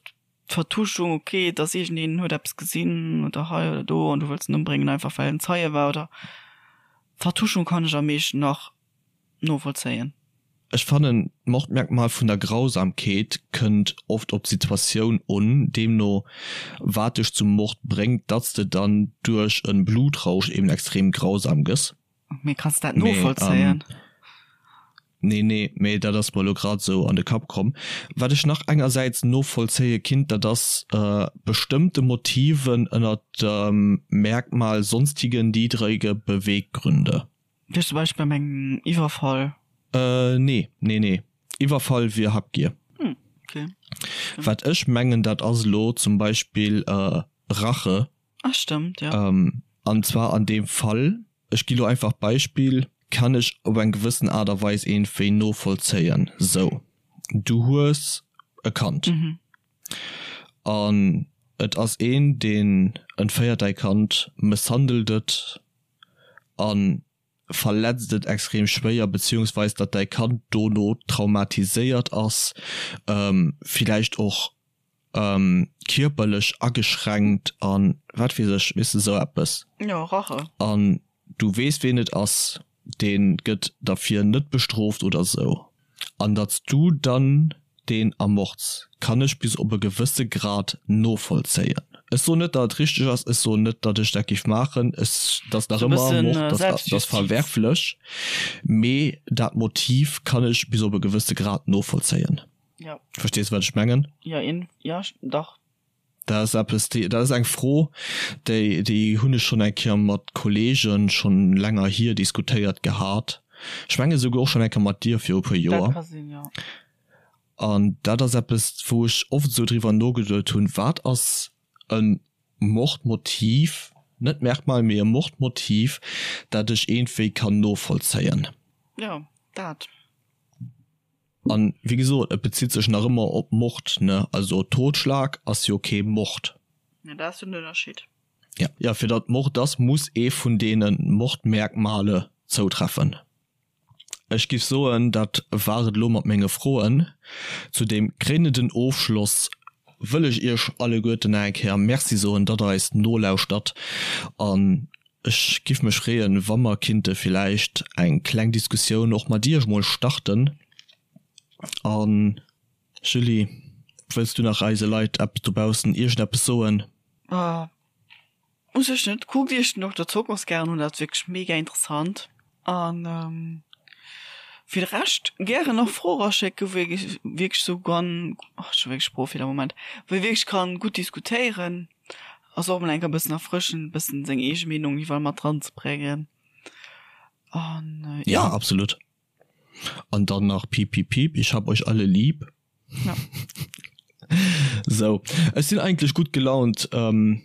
d'Vertuschung, ok, dass iergendeen huet eppes gesinn oder hei oder do an du wëlls en ëmbréngen einfach well en Zeie war oder Vertuschung kann ech am meeschten nach novollzéien. Ech fannen d'Mordmerkmal vun der Grausamkeet kënnt oft op d'Situatioun un, deemno wat dech zum Mord bréngt, datts de dann duerch en Blutrausch eben extrem grausam gëss. Mee kanns dat novollzéien? Nee, nee, mee dat ass mer elo grad esou an de Kapp komm. Wat ech nach engersäits novollzéie kinnt, dat ass bestëmmte Motiven ënner dem Merkmal sonstige niedrige Beweggründe. Wéi zum Beispill beim engem Iwwerfall? Nee, nee, nee. Iwwerfall wier Habgier. Hm, okay. Wat ech mengen, dat ass elo zum Beispill Rache. Ah stëmmt, jo. An zwar an deem Fall, ech gi lo einfach d'Beispill, kann ech op eng gewëssen Aart a Weis iergendwéi novollzéien, sou, du hues e Kand an et ass een, deen entféiert däi Kand, mësshandelt et a verletzt et extrem schwéier, beziehungsweis datt däi Kand dono traumatiséiert ass, villäicht och kierperlech ageschränkt an wat weess ech, weess de, sou eppes. Jo, Rache. An du weess ween et ass, dee gëtt derfir net bestrooft oder sou. An datt s du dann deen ermords, kann ech bis op e gewësse Grad novollzéien. Ech soen net, datt et richteg ass, ech soen net, datt ech dat géif maachen, ech, dat ass nach ëmmer Mord, dat ass verwerflech, mee dat Motiv kann ech bis op e gewësse Grad novollzéien. Ja. Verstees du, wat ech mengen? Ja, in, ja, dach. Dat ass eppes, déi, dat ass eng Fro, déi, déi hunn ech schonn eng Kéier mat Kolleegen schonn länger hier diskutéiert gehat. Ech menge souguer och schonn eng Kéier mat dir viru puer Joer. Dat ka sinn, jo. An dat ass eppes, wou ech oft esou driwwer nogeduet hunn, Wat ass e Mordmotiv, net Merkmal, mee e Mordmotiv, dat ech iergendwéi kann novollzéien? Jo, dat. An wéi gesot, et bezitt sech nach ëmmer op Mord, ne? Also Totschlag ass jo kee Mord. Ja, dat ass jo den Ënnerscheed. Ja. Ja, fir datt Mord ass, muss ee vun deene Mordmerkmale zoutreffen. Ech giff soen, dat war et elo mat menge Froen. Zu deem kréinenden Ofschloss wëll ech iech alleguerten nach eng Kéier Merci soen, datt der eis nolauschtert. An Ech giff mech freeën wa mer kinnte villäicht eng kleng Diskussioun och mat iech mol starten. An Julie, wëlls du nach eise Leit eppes dobaussen iergendeppes soen? U sech net. Kuckt iech den Dokter Zokos gären un, dat ass wierklech mega interessant. An fir de Rescht gären och Froe raschécken, wou ee wierklech sou kann, ach ech hu wierklech Sproochfeeler, Moment, wou ee wierklech kann gutt diskutéieren. Ass och mol enker bëssen erfrëschend, bëssen seng eege Meenung iwwerall mat dran ze bréngen. An ja. Ja, absolut. An dann nach piep piep piep, ich hab euch alle lieb. Ja. Sou, ech sinn eigentlech gutt gelaunt ähm,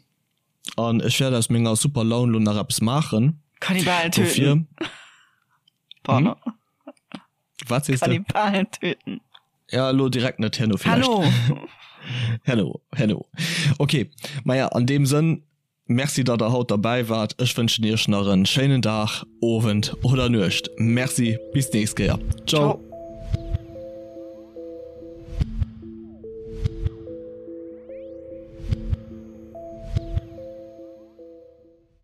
an ech wäert aus menger super Laun lo nach eppes maachen. Kannibalen töten. Dofir. Pardon. Hm? Wat sees de? Kannibalen töten. Ja, elo direkt net, herno villäicht. Hallo. Hello, hello. Okay, maja, an deem Sënn, Merci, datt der haut derbäi waart. Ech wënschen iech nach en schéinen Dag, Owend oder Nuecht. Merci, bis d'nächst Kéier. Ciao. Ciao.